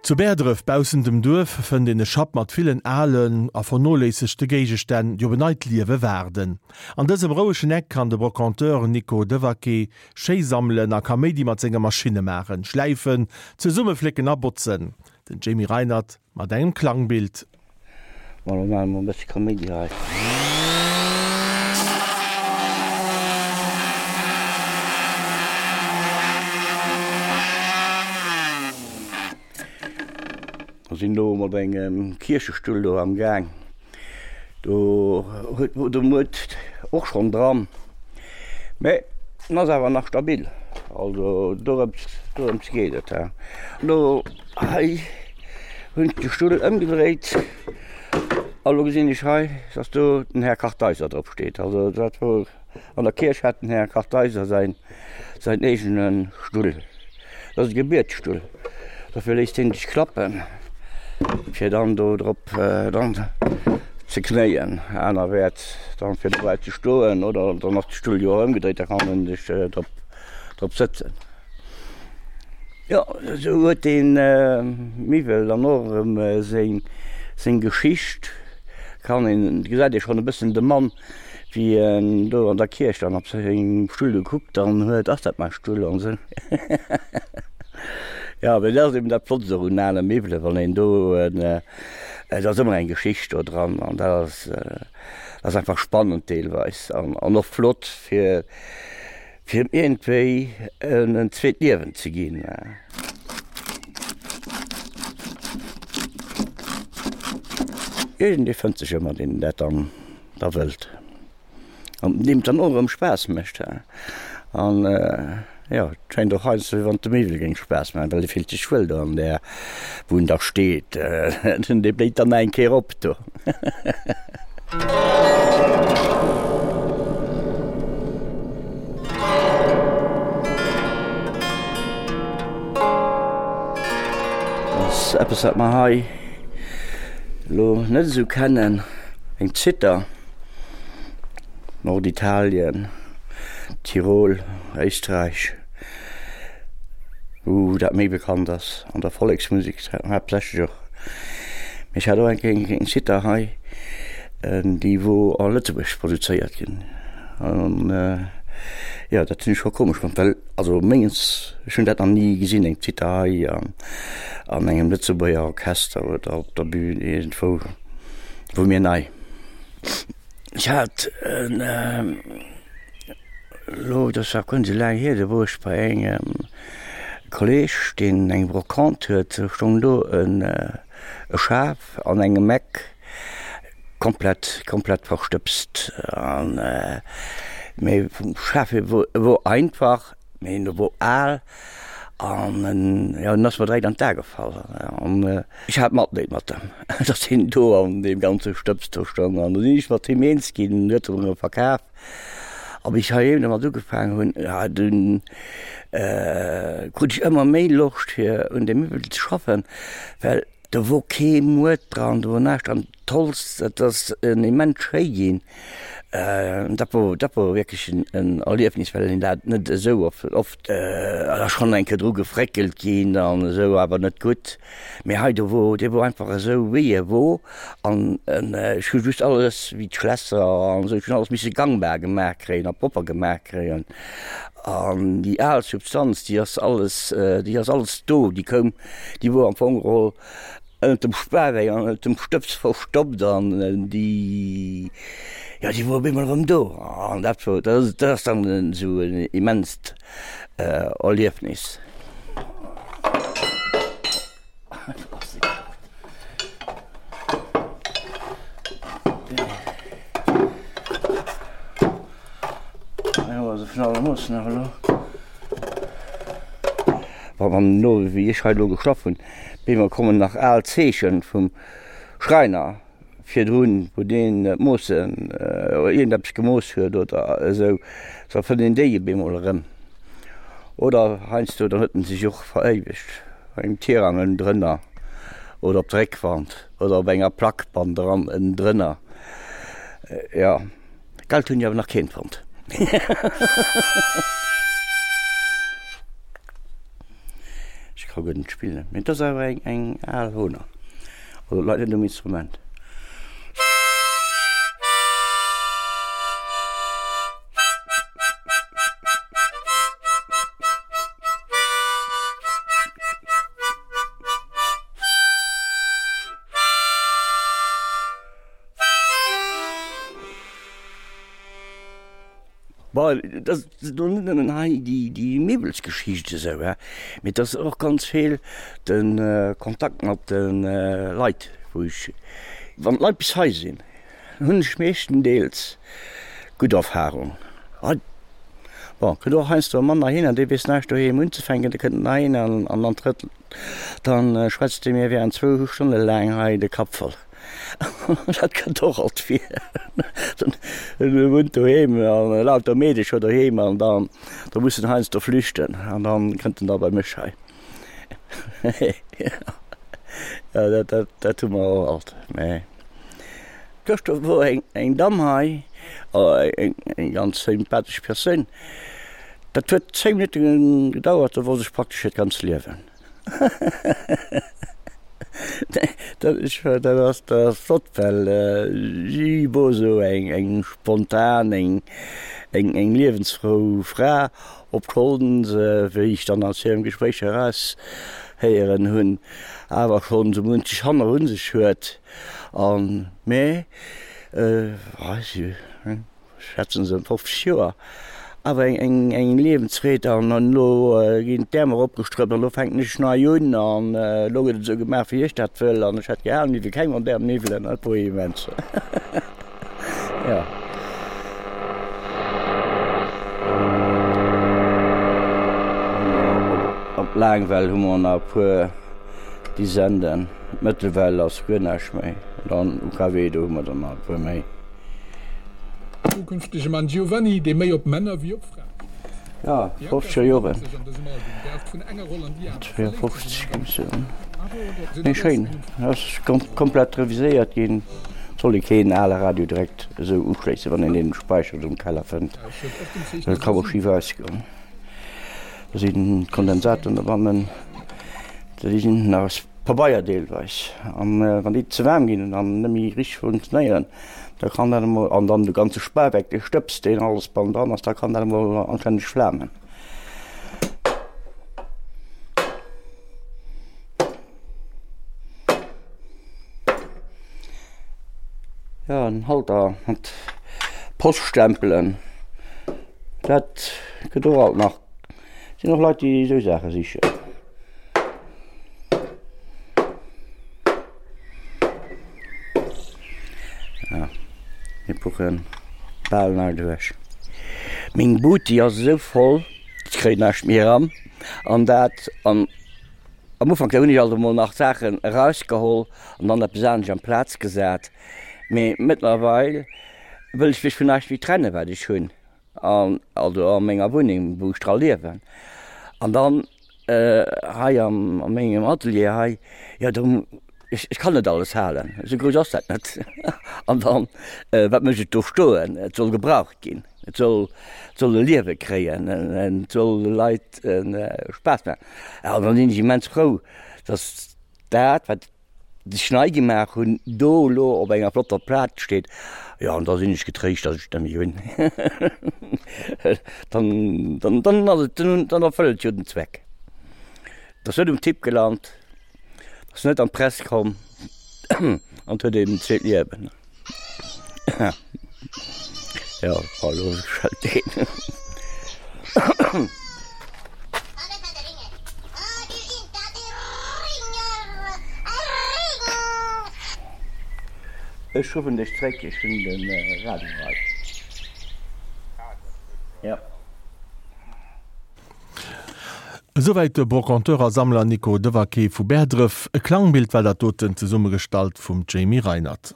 Zu Bäerdref, baussent dem Duerf, fënnt een e Schapp mat villen alen a vernoléissegte Géigestänn, déi op en neit Liewe waarden. An dësem rouegen Eck kann de Brocanteur Nico Devaquet schéi sammelen a Kaméidi mat senge Maschinne maachen, schläifen, zesummeflécken a botzen. Den Jamie Reinert mat engem Klangbild. Bon, lo maache mer e bësse Kaméidi hei. Mer sinn do mat engem Kierchestull do am Gaang. Do huet wor de Muert och schonn dran, mä en ass awer nach stabil. Also dorëms dorëms geet et. Lo hei hunn ech de Stull ëmgedréit a lo gesinn ech hei, dass do den Här Kartheiser drop steet. Also dat wor an der Kierch hat den Här Kartheiser säin säin eegene Stull. Dat ass e Gebietsstull. Dofir léisst hien sech klappen, fir dann do drop dann ze knéien. Anerwäerts dann fir dobäi ze stoen oder dann ass de Stull jo och ëmgedréit, da kann en sech drop drop sëtzen. Jo, esou huet dee Miwwel dann och erëm seng seng Geschicht. Kann een, gesäit ee schonn e bëssen de Mann, wéi en do an der Kierch dann op sengem Stull gekuckt dann huet, ass dat mäi Stull an esou. Jo, mee dat ass eben dat Flottst och un ale Miwwelen, wann een do en, et ass ëmmer eng Geschicht do dran an dat ass, dat ass einfach spannend deelweis an an och flott fir Fir em iergendwéi en zweet Liewen ze ginn. Iergendee fënnt sech ëmmer, deen dat dann da wëllt an deem et dann och erëm Spaass mécht. An jo, et schéngt och heiansdo, wéi wann et dem Miwwel géing Spaass maachen, well e fillt sech wuel do an där, wou en da steet. Dee bléit dann nach eng Kéier op do. Ass eppes wat mer hei elo net esou kennen, eng Zither, Norditalien, Tirol, Éisträich, wou dat méi bekannt ass, an der Volleksmusek haaptsächlech och. Mee ech hat och eng Kéier eng Zither hei, déi wou a Lëtzebuerg produzéiert ginn. An jo, dat hunn ech scho komesch fonnt, well also mengens, ech hunn dat nach ni gesinn, eng Zither hei an an engem Lëtzebuerger Orchester oder op der Bühn iergendwou, wor mir nei. Ech hat en elo, dat ass nach guer net esou laang hier, do wor ech bei engem Kolleg, deen eng Brocante huet, do stoung do en e Schaf an engem Eck, komplett komplett verstëbst an mee vum Schaf hier wor e wor einfach, mee en wor al an en jo en ass mer direkt an d'A gefall an ech hat Matleed mat em, datt hien do an deem ganze Stëbs do stoung an du sinn ech mat him eens ginn, en huet en erëm verkaf a wéi ech heiheem domat ugefaangen hunn, ja dunn krut ech ëmmer méi Loscht fir un deem Miwwel ze schaffen, well Do wor kee Muert dran, do wor näischt dran. D'Holz, dat ass immens schéi ginn. Dat wor, dat wor wierklech en Erliefnis, well een dat net esou oft, et ass schonn eng Kéier dru gefréckelt ginn an esou, awer net gutt. Mee hei, do wor, dee wor einfach esou wéi e wor an ech hu just alles, wéi d'Schlässer an esou, ech hunn alles misse gangbar gemaach kréien a propper gemaach kréien. An déi al Substanz, déi ass alles, déi ass alles do, déi koum Déi wor am Fong geholl ënnert dem Spaweck an ënnert dem Stëbs verstoppt an déi, jo, déi wor op eemol erëm do. An dat wor, dat ass dann esou en immenst Erliefnis. Wann elo, wéi ech hei elo geschlaff hunn, bemol kommen nach al Zeechen vum Schräiner virdrun, wou deen d'Moossen oder iergendeppes gemooss huet oder esou, da fënnt een déi bemol erëm. Oder heiansdo, dann huet en sech och veréiwegt bei engem Tirang ënnendrënner oder op der Réckwand oder op enger Plack bannendran ënnendrënner. Jo. Geld hunn ech awer nach keent fonnt. ka guer net spillen, mee et ass awer eng eng al Hohner, also et leit net um Instrument. Bon, et ass elo net nëmmen hei déi Miwwelsgeschicht esou, hè, mee et ass och ganz vill de Kontakt mat de Leit, wou ech, wann d'Leit bis hei sinn, hunn ech meeschtendeels gutt Erfahrung. Hei, bon, kënnt och heiansdo e Mann heihinner, dee weess näischt doheem unzefänken, dee kënnt heihinner an dann trëtt, dann schwätzt dee mir während zwou Stonne laang hei de Kapp voll. Dat kënnt och alt vir. En wunnt doheem an lauter Meedecher doheem an dann da muss en heiansdo flüchten an dann kënnt en da bei mech hei. Jo dat dat dat hu mer och alt. Mä gëschter wor eng eng Damm hei, eng eng ganz sympathesch Persoun, dat huet 10 Minutte gedauert, do wosst ech praktesch hiert ganz Liewen. Dat ass flott, well si wor esou eng spontan, eng liewensfrou Fra, obschonn se, wéi ech dann aus hirem Gespréich eraushéieren hunn, awer schonn esou munch Hanner un sech huet. Mä si. Schätzen se 50 Joer, awer eng eng Liewensfreed an elo ginn d'Äerm eropgestrëppt an elo fänken ech nei un an elo gëtt et esou gemaach wéi ech dat wëll an ech hätt gär aner Miwwel, keng modern Miwwelen, dat wor immens, jo. Op Laangwell hu mer nach e puer Disenden, Mëttelwell ass guer näischt méi, dann UKW do hu mer der nach e puer méi. Zukünftege Mann Giovanni, dee méi op Männer wéi op Fraen steet. Ja, 50er Joren. 52 géing ech soen. Mee schéin, ass komplett reviséiert ginn. Soll ee keen ale Radio direkt esou uschléissen, wann een deen gespäichert um Keller fënnt. Dat ka mol schif ausgoen. Do sinn d'Kondensatoren dobannen, déi sinn nach aus Pabeier deelweis. An wann déi ze waarm ginn an net méi richteg funktionéieren, Da kann dat emol, an dann de ganze Spaweck, dee Stëbs, deen alles bannendran ass, da kann dat emol anstänneg flamen. Jo, en Halter mat Poststempelen, dat gëtt och alt nach. Sinn och Leit, déi esou Saache sichen. Ja, mir puchen bal nei duerch. Meng Buti ass esou voll, ech kréien näischt méi eran. An dat an am Ufank hunn ech alt emol nach Saachen erausgeholl an dann eppes anescht amplaz gesat. Mee mëttlerweil wëll ech mech vun näischt méi trennen, wat ech hunn. An also a menger Wunneng, wou ech dra liewen. An dann hei am a mengem Atelier hei, jo do, ech ech kann net alles halen, esou grouss ass dat net. An dann, wat mécht et do stoen? Et soll gebraucht ginn, et soll et soll e Liewe kréien, et soll de Leit Spaass maachen. An dann sinn ech immens frou, datt dat, wat Sech nei gemaach hunn, do elo op enger flotter Plaz steet, jo an da sinn ech getréischt, datt ech net méi hunn. Dann, dann, dann ass et, dann erfëllt et jo den Zweck. Et ass net um Tipp gelant, ass net an d'Press komm an et huet eben en zweet Liewen. Jo, elo schellt deen. Ech ruffen dech zréck, ech hunn de Radio hei. Jo. Esouwäit de Brocanteur a Sammler Nico Devaquet vu Bäerdref. E Klangbild war dat doten, zesummegestallt vum Jamie Reinert.